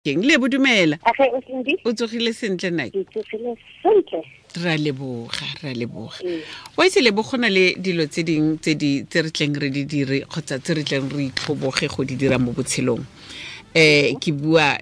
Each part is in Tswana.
Keng le bodumela o tsogile sentle nake? Ra leboga, ra leboga. Wa itse lebo, go na le dilo tse dingwe tse di tse re tleng re di dire kgotsa tse re tleng re itlhoboge go di dira mo botshelong. Ke bua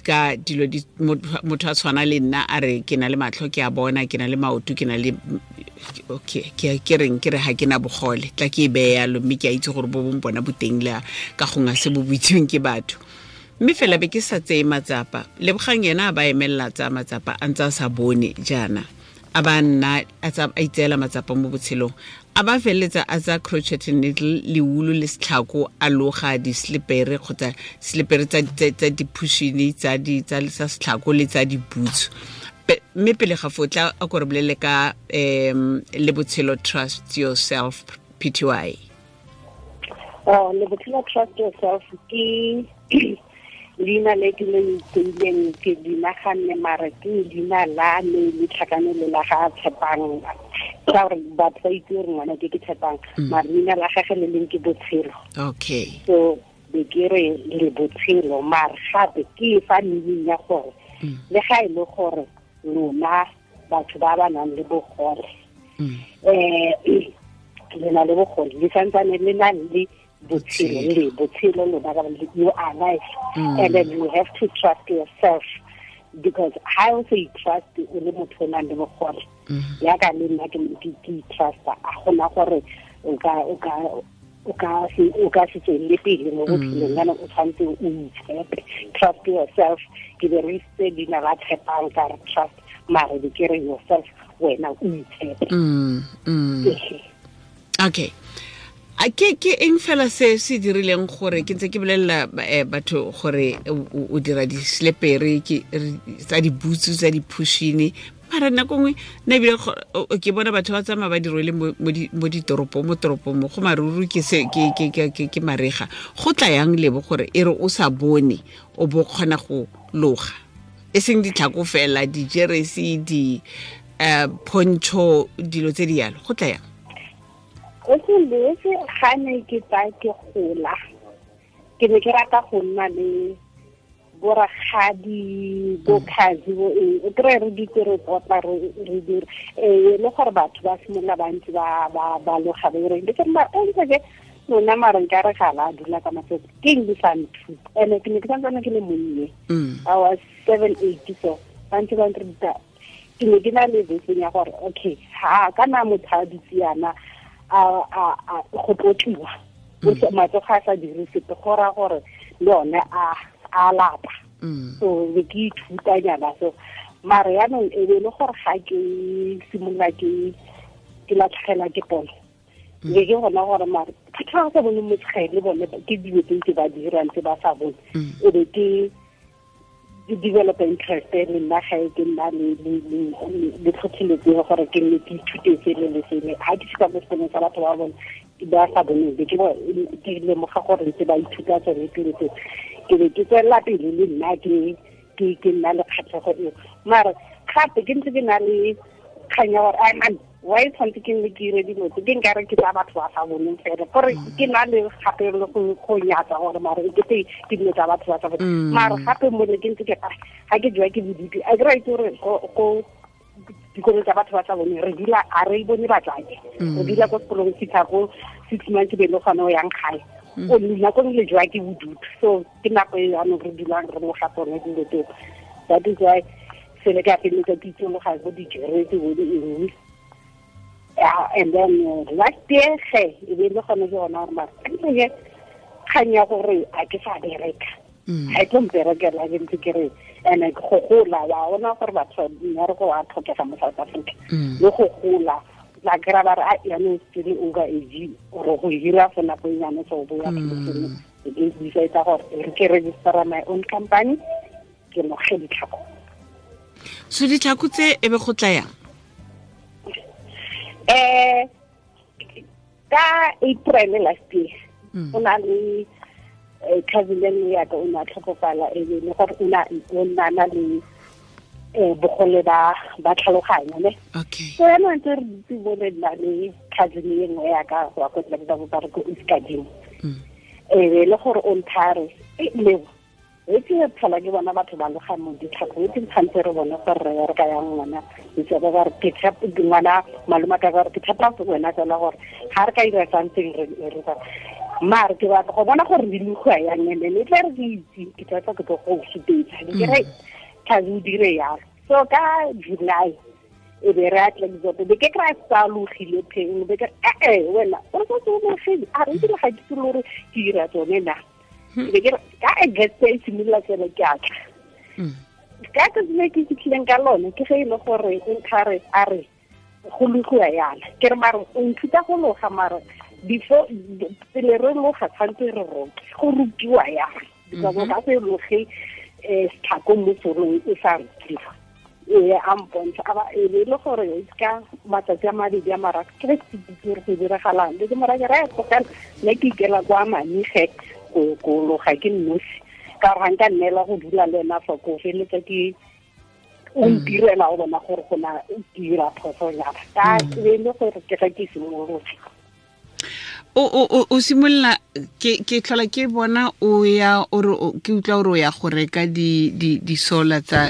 ka dilo di motho a tshwana le nna a re ke na le matlho, ke a bona, ke na le maoto, ke na le, okay, ke reng, ke re ga ke na bogole, tla ke e beye yalo, mme ke a itse gore bo bong bona boteng le ka gongwe se bo boitseweng ke batho, mme fela be ke sa tseye matsapa. Lebogang yena a ba emelela tsaya matsapa a ntse a sa bone jaana, a ba nna a itseela matsapa mo botshelong, a ba feleletsa a tsaya crochet needle le wool le setlhako, a loga di-slipere kgotsa slipere tsa diphushini tsa setlhako le tsa diboots. Mme pele ga foo, tla a ko re bolele ka le Botshelo Trust Yourself Pty. Oh, le Botshelo Trust Yourself ke leina le ke le itseileng, ke di naganne, mare ke leina la me le tlhakanelo la ga Tshepang, ka gore batho ba itse gore ngwana ke Tshepang, mare leina la gage le leng ke Botshelo. So be ke re le Botshelo, mare gape ke fa meaning ya gore le ga e le gore lona batho ba ba nang le bogole, le na le bogole, le santsane le na le botshelo, le botshelo lona ka, you are life, and then you have to trust yourself, because ha o sa trust o le motho o nang le bogole, yaka le nna ke trusta, a gona gore o ka se tswelele pele mo botshelong. Yana o tshwanetse o itshepe, trust yourself. Ke berekisitse leina la Tshepang ka re trust, mare be ke re yourself, wena o itshepe. Okay, a ke eng fela se se dirileng gore ke ntse ke bolelela batho gore o dira di-slepere tsa dibutsu, tsa diphushini, mara nako nngwe nna ebile ke bona batho ba tsamaya ba di rwele mo ditoropong, mo toropong mo go maruru, ke se ke marega. Go tla yang lebo gore e re o sa bone o bo kgona go loga, e seng ditlhako fela, dijeresi, di poncho, dilo tse di yalo? Go tla yang? O se letse ga ne ke tsa ke gola, ke ne ke rata go nna le borakgadi, bokhazi, bo eng, o kry re ditse re tlotla, re dire ee le gore batho ba simolola bantsi ba loga ba ireng ke ma ntse ke lona, mare nka re ga la dula ka matsatsi ke eng di sa nthuta. Ene ke ne ke santsane ke le monnye, I was 7, 8, so ba ntse ba nruta. Ke ne ke na le beseng ya gore okay, ha kana motho a dutse yana a go tlotliwa, matsogo a sa dire sepe, go raya gore le one a lapa. So be ke ithutanyana so, mare yaanong e be le gore ga ke simolola ke latlhegelwa ke pono, be ke gona gore mare batho ba sa bone motshegele le bone ke dilo tse ntse ba dirang tse ba sa bone, e be ke develop interest le nna ga ke nna le tlhotlheletso ya gore ke nne ke ithute sele le sele. Ga ke fitlha mo sekolong sa batho ba bone ba sa boneng, be ke lemoga gore ntse ba ithuta tsone dilo tse, ke be ke tswelela pele le nna ke nna le kgatlhego eo. Mare gape ke ntse ke na le kgang ya gore ai man, why tshwanetse ke nne ke dire dilo tse ke nkare ke tsa batho ba sa boneng fela, gore ke na le gape le go nyatsa gore mare e kete ke dilo tsa batho ba sa boneng. Mare gape mole ke ntse ke ga ke jewa ke bodutu, a ke ra itse gore go dikolong tsa batho ba sa boneng re dula a re bone batsadi, re dula ko sekolong fitlha ko 6 months, be le gone o yang gae, o nako le jewa ke bodutu. So ke nako e yanong re dulang re loga tsone dilo tseo. That is why sele ke a feleletsa ke itsologa bo dijeresi, bo di eng. Yeah, and then last year ge e be le gone ke gona gore mare ke kgang ya gore a ke sa bereka, ga e tlo mperekela. Ke ntse ke re and go gola wa ona gore batho mmereko wa tlhokega mo South Africa, le go gola la kry-a ba re a yaanong sele over age ore go hira for nako e nyane, so bo ya pheletseng ke decide gore re ke registera my own company, ke loge ditlhako. So ditlhako tse e be go tla yang? Ka April last year, o na le cousin e nngwe yaka o ne a tlhokofala, e be le gore o na na le bogole ba tlhaloganyo ne. So yaanong ntse re dutse mo le nna le cousin e nngwe yaka wa ko tla ba re ko Iskadimo, e be le gore o nthare e leo. E ke tlhola ke bona batho ba loga mo ditlhako, e ke tshwanetse re bone gore re ka yang ngwana itse ba re ke tshepa ngwana malome ka gore ke tshepa wena fela gore ga re ka ira something re re mare ke batla go bona gore di logiwa yang, and then e tla re ke itse ke tla ke tlo go supetsa ke re tlhabe o dire yalo. So ka July e be re atla ditsoto be ke kry-a sa logile pheng be ke re wena o re sa logile a re ebile ga ke itse le gore ke dira tsone na. Be ke ka August e simolola fela ke atla. Ka tsatsi le ke fitlhileng ka lone ke ge e le gore o nthare a re go logiwa yana, ke re mare o nthuta go loga mare before pele re loga tshwanetse re roke go rokiwa yana, because o ka se loge setlhako mo solong e sa rokiwa. Ee, a mpontsha a ba e le gore ka matsatsi a mabedi a mararo ke re ke itse gore go diragalang, le ke mora ke re tlogela nna ke ikela kwa Manige go loga ke nnosi, ka gore ga nka nneela go dula le ena fa ko feleletsa ke o ntirela go bona gore go na dira phoso jang, ka e le gore ke ga ke simolotse. O simolola ke tlhola ke bona o ya o re ke utlwa gore o ya go reka di sola tsa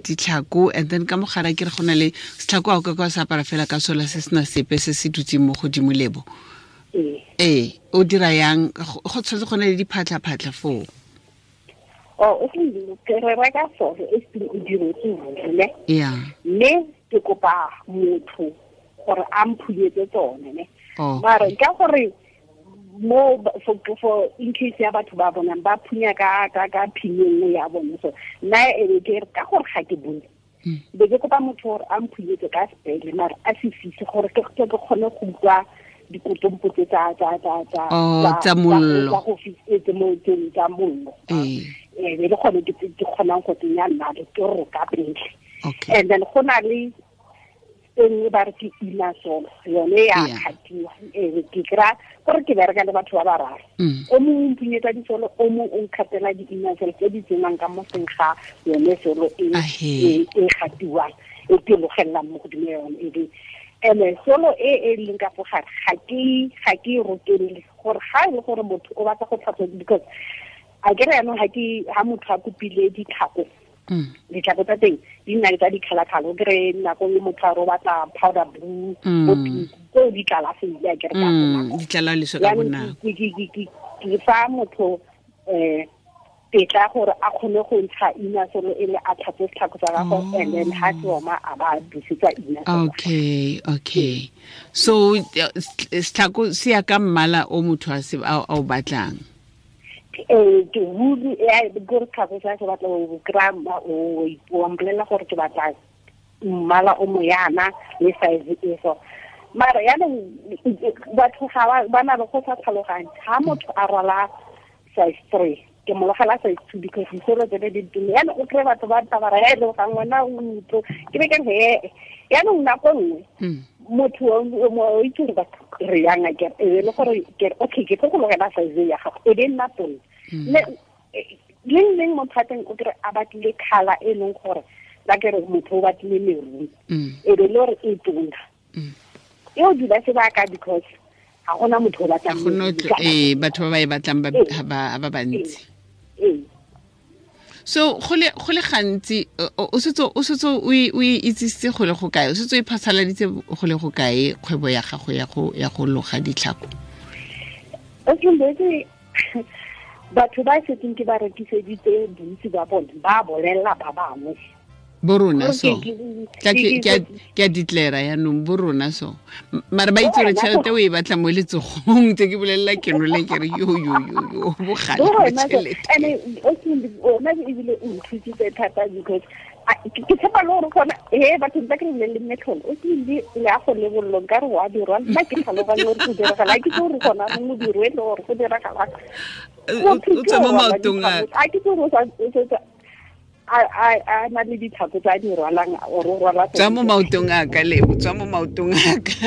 ditlhako, and then ka mogara ke re go na le setlhako a o ka kwa se apara fela ka sola se sena sepe se se dutseng mo godimo lebo. Ee, o dira yang go tshwanetse go na le diphatlha-phatlha foo? O ke re reka solo e seng o diretse ruri ne? Yeah. Mme ke kopa motho gore a mphunyetse tsone ne. Mare ka gore mo for in case ya batho ba bonang ba phunya ka ka phinyo nngwe ya bone, so nna e ke re ka gore ga ke bone be ke kopa motho gore a mphunyetse ka sepele mare a se fise gore ke kgone go utlwa dikotompo tse tsa mollo, tsa go fise mo tsa mollo. Ee, be le gone ke kgonang go tsenya nnale ke roka pele. And then go na le e nngwe ba re ke ina solo yone ya kgatiwa. Ee, ke kry-a gore ke bereka le batho ba bararo, o mongwe o mpunyetsa disolo, o mongwe o nkgatela di-ina solo tse di tsenang ka mo teng ga yone solo e e gatiwang e ke logelelang mo godimo ya yone. E ene solo e e leng ka fo gare ga ke e rokelele gore ga e le gore motho o batla go tlhatswa, because a ke re yaanong ga motho a kopile ditlhako, ditlhako tsa teng di nna le tsa di-colour-colour, o kry-e nako nngwe motho a re o batla powder blue, bo pink, tseo di tlala sentle a ke re ka bonako. Di tlala leswe ka bonako. Ke fa motho tetla gore a kgone go ntsha ina solo e le a tlhatswe setlhako sa gagwe, and then ha se oma a ba busetsa ina solo. Okay. So setlhako se ya ka mmala o motho a o batlang. Ke ruri gore tlhako sa se batla o kry-a o mpolelela gore ke batla mmala o moyana le size e so. Mara yaanong batho ga ba na le go sa tlhaloganye, ga motho a rwala size 3 ke mo logela size 2 because disolo tsone di tume, yaanong o kry-e batho ba tabara ya e le gang wena o ntlo ke be ke re yaanong nako nngwe motho o itse gore batho re yang a kere e le gore ke okay ke tlo go logela size ya gago e be nna tona. Le leng motho a teng o kry a batlile colour e leng gore la ke re motho o batlile maroon e be le gore e tona e o dula sebaka because ga gona motho o batlang batho ba ba e batlang ba bantsi. So go le gantsi o setse o itsisitse go le go kae, o setse o iphasaladitse go le go kae kgwebo ya gago ya go loga ditlhako? Batho ba setseng ke ba rekiseditse bontsi ba bone ba bolelela ba bangwe bo rona so ke a declare yaanong bo rona so mare ba itse gore tšhelete o e batla mo letsogong tse ke bolelela ke nole ke re yo yo yo yo bogale ba tšhelete. Ene ona ebile o nthusitse thata because ke tshepa le gore gona he batho ba ke re bolelele metlholo o tlile le a go lebollong ka re wa dirwa nna ke tlhaloganye gore go diragala ke tse gore gona modiro e le gore go diragala o tswa mo maotong a ke tse gore a na le ditlhako tsa di rwalang or o rwala tswa mo maotong a ka lebo tswa mo maotong a ka.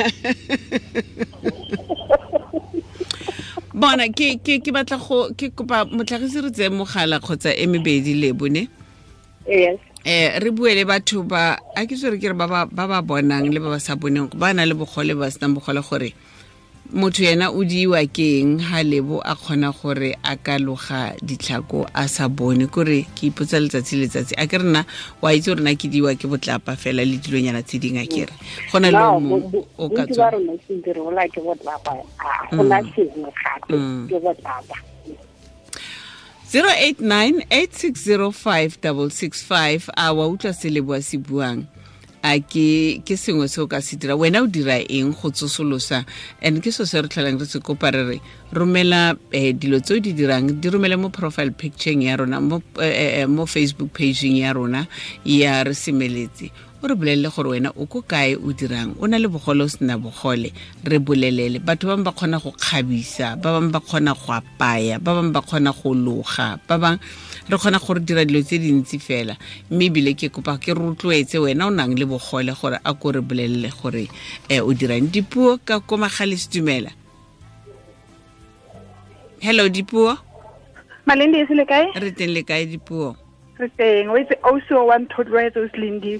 Bona ke batla go ke kopa motlhagisi re tseye mogala kgotsa e mebedi lebo ne. Yes. Re bue le batho ba a ke tsore ke re ba ba bonang le ba ba sa boneng ba na le bogole ba senang bogole gore Motho yena o diwa ke eng ha Lebo a kgona gore a ka loga ditlhako a sa bone? Kore ke ipotsa letsatsi letsatsi, a ke rena wa itse gore na ke diwa ke botlapa fela le dilonyana tse dingwe, a kere go na le o mongwe o ka tswa. Ke botlapa, a gona sengwe gape, ke botlapa. 089 860 5665. A wa utlwa se Leboa se buang? A ke sengwe se o ka se dira? Wena o dira eng go tsosolosa? And ke so se re tlholang re se kopa, re re romela dilo tse o di dirang, di romele mo profile pictureng ya rona mo Facebook pageng ya rona ya Re Semeletse. O re bolelele gore wena o ko kae, o dirang, o na le bogole, o sena bogole, re bolelele. Batho ba bangwe ba kgona go kgabisa, ba bangwe ba kgona go apaya, ba bangwe ba kgona go loga, ba bangwe re kgona gore dira dilo tse dintsi fela. Mme ebile ke kopa ke rotloetse wena o nang le bogole gore a ko re bolelele gore o dirang. Dipuo ka ko Magale, Setumela. Hello, Dipuo. Malindi, e se le kae? Re teng, le kae, Dipuo? Re teng. O itse, ausi o wa nthotloetse, o Selindi.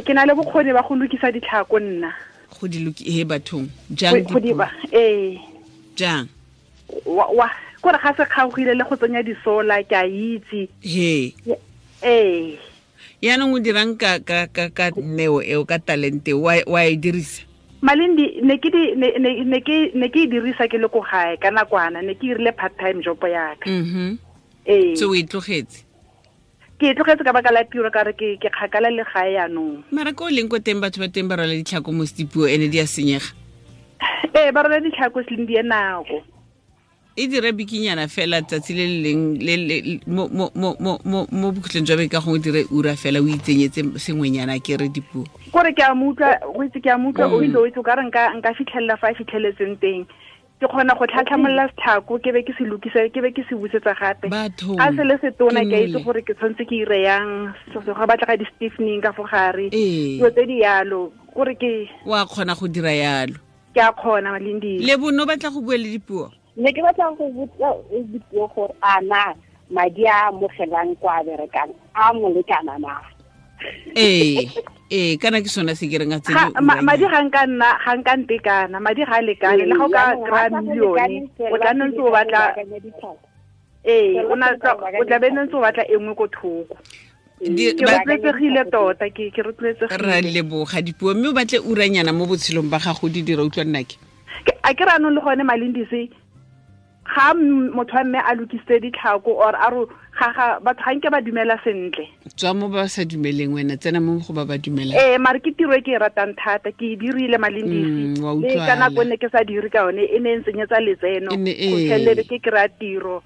Ke na le bokgoni ba go lokisa ditlhako nna. Go di loki he bathong jang? Go di ba, ee. Jang? Wa kore ga se kgaogile le go tsenya disola, ke a itse. He? Ee. Yaanong o dirang ka neo eo, ka talente wa e dirisa? Malindi, ne ke di ne ne ne ke ne ke e dirisa ke le ko gae ka nakwana, ne ke irile part time job ya ka. Ee. So o e tlogetse? Ke e tlogetse ka baka la tiro, ka re ke kgakala le gae yaanong. Mara ko o leng ko teng, batho ba teng ba rwala ditlhako mo Dipuo, ene di a senyega. Ee, ba rwala ditlhako, Selindi, e nako. E dire bikinyana fela tsatsi le le leng mo bokhutlong jwa beke, ka gongwe dire ura fela, o itsenyetse sengwenyana, ke re, Dipuo. Kore ke a mo utlwa, o itse, ke a mo utlwa, o itse, o itse, o ka re nka fitlhelela fa a fitlheletseng teng. Ke kgona go tlhatlhamolola setlhako, ke be ke se lokise, ke be ke se busetsa gape. Bathong. A se le setona, ke a itse Ke nole. gore ke tshwanetse ke ire yang, go batlega di-stiffening ka fo gare. Ee. Dilo tse di yalo, kore ke Wa kgona go dira yalo? Ke a kgona, Malindi. Le bono batla go bua le Dipuo. Ne ke batla go botsa Dipuo gore a na madi a amogelang kwa a berekang a mo lekana na? Ee, kana ke sona se ke reng a tsene. Madi ga nka nna, ga nka ntekana, madi ga a lekane. Le ga o ka Jaanong kry-a ga sa go millione, lekane, o tla nne ntse o batla ee, o na o tla be ntse o batla e nngwe ko thoko. Ke rotloetsegile tota, ke rotloetsegile. Ra leboga, Dipuo, mme o batle uranyana mo botshelong ba gago di dira, utlwa nnake. A ke re anong le gone, Malindise, ga motho wa mme a lokisitse ditlhako or a ro ga batho ga nke ba dumela sentle. Tswa mo ba sa dumeleng, wena tsena mo go ba ba dumelang. Ee, mare ke tiro e ke e ratang thata, ke e dirile, Malindisi. Wa Le ka utlwala. nako ne ke sa dire ka yone, e ne e ntsenyetsa letseno. E ne, Go ee. fitlhelele ke kry-a tiro,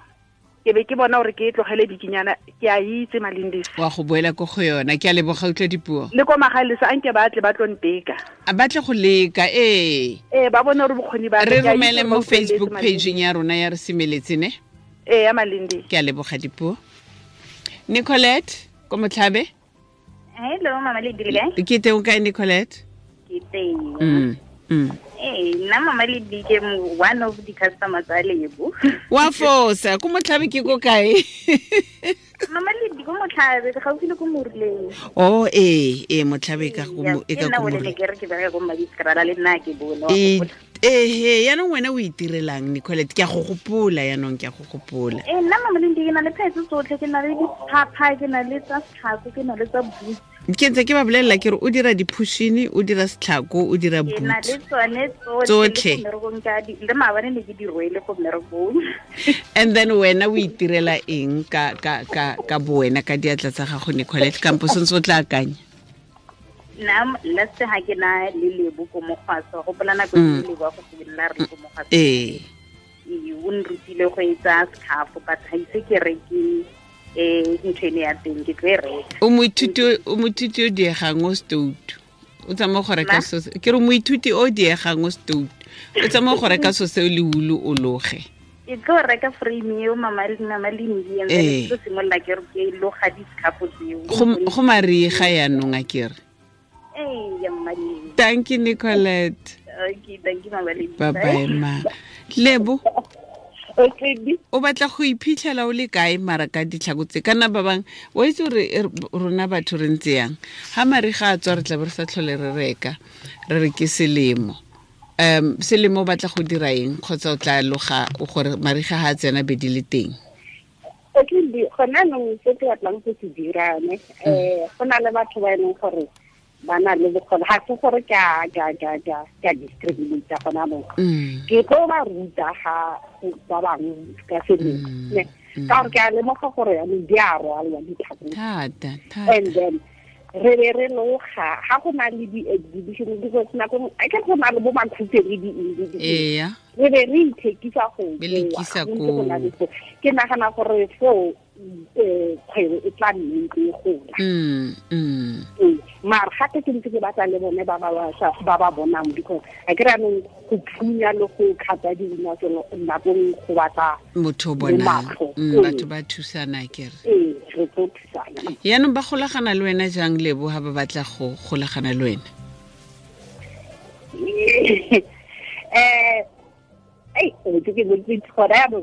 ke be ke bona gore ke e tlogele bikinyana. Ke a itse, Malindisi. Wa go boela ko go yona. Ke a leboga, utlwa, Dipuo. Le ko Magalesa, a nke ba tle ba tlo nteka. A batle go leka, ee. Ee, ba bone gore bokgoni ba ka, Re ke a itse romele gore mo ba utlweletse, Facebook Malindi. pageng ya rona ya Re Semeletse, ne? Ee, ya Malindi. Ke a leboga, Dipuo. Nicolette ko Motlhabe. Hello, Mama Ledi, le kae? Ke teng, o kae, Nicolette? Ke teng. Ee, nna Mama Ledi ke one of the customers tsa Lebo. Wa fosa, ko Motlhabe ke ko kae? Mama Ledi, ko Motlhabe, gaufi le ko Moruleng. Oh, ee, Motlhabe e ka go e Ke ka nna ko o le Moruleng. ke re ke bereka ko Mmadiskrala, le nna ke bone, wa Ee, gopola. Ehe, yaanong wena o itirelang, Nicolette? Ke a go gopola yaanong, ke a go gopola. Ee, nna Mama Ledi ke na le phetse tsotlhe, ke na le diphapha, ke na le tsa setlhako, ke na le tsa boots. Ke ntse ke ba bolelela ke re o dira diphushini, o dira setlhako, o dira Ke na boot. le tsone tsotlhe. Tsotlhe. Le ko mmerekong ke a le maabane ne ke di rwele ko mmerekong. And then wena o itirela eng ka bowena, ka diatla tsa gago, Nicolette, kampo sentse o tla akanya? Nna last ha ke na le Lebo ko Mokgwaso, gopola nako e Lebo a go simolola re le ko Mokgwaso. Ee, o nrutile go etsa scarf, but ga ise ke reke ntho ene ya teng, ke tlo e reka. O moithuti o diegang o stout, o tsamaya go reka Ma? so ke re moithuti o diegang o stout, o tsamaya go reka so seo le ulu o loge. Ke tlo reka frame eo, Mama Lindi, and then ke tlo simolola ke re ke loga di-scarf tseo. Go mariga yaanong, a kere? Ee, ya Mama Lindi. Thank you, Nicolette. Okay, thank you, Mama Lindi. Bye bye, ma Lebo. Okay. O batla go iphitlhela o le kae mara ka ditlhako tse? Kana ba bangwe wa itse gore rona batho re ntse yang, ga mariga a tswa re tla be re sa tlhole re reka, re re ke selemo. Selemo o batla go dira eng kgotsa o tla loga gore mariga ha tsena be di le teng? Okay, gona nong se ke batlang go se dira ne go na le batho ba e leng gore ba na le bokgoni, ga se gore ke a discriminate gona mo. Ke tlo ba ruta ga ba bangwe ka selemo ne, ka gore ke a lemoga gore yanong di a rwalwa ditlhako thata. And then re be re loga ga go na le di-exhibition, because nako a ke go na le bo makhutse le di re be re ithekisa go go. Ke nagana gore foo kgwebo e tla nne ntse e gola. Mara gape ke ntse ke batla le bone ba ba bonang, because a ke re anong go phunya le go kgatha dina tseno nakong go batla motho o bonang, batho ba thusana kere. Ee, re tlo thusana. Yaanong ba golagana le wena jang Lebo ha ba batla go golagana le wena?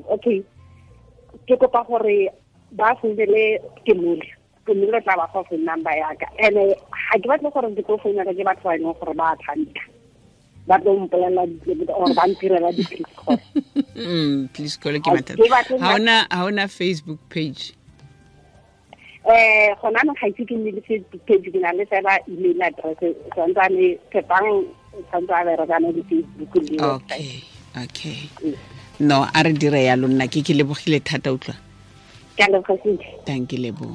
Okay, ke kopa gore ba founele Kemole, Kemole tla ba fa phone number ya ka. And ga ke batle gore ke tlo founela ke batho ba e leng gore ba tshameka, ba tlo mpolelela or ba ntirela di-please call. Please call ke mathata. Ha ona Facebook page? Gona no ga itse ke nne le Facebook page, ke na le fela email address, santsane Tshepang santse a berekana le Facebook le website. Okay. No, a re dire yalo nna ke lebogile thata utlwa. Ke a leboga sentle. Thank you Lebo.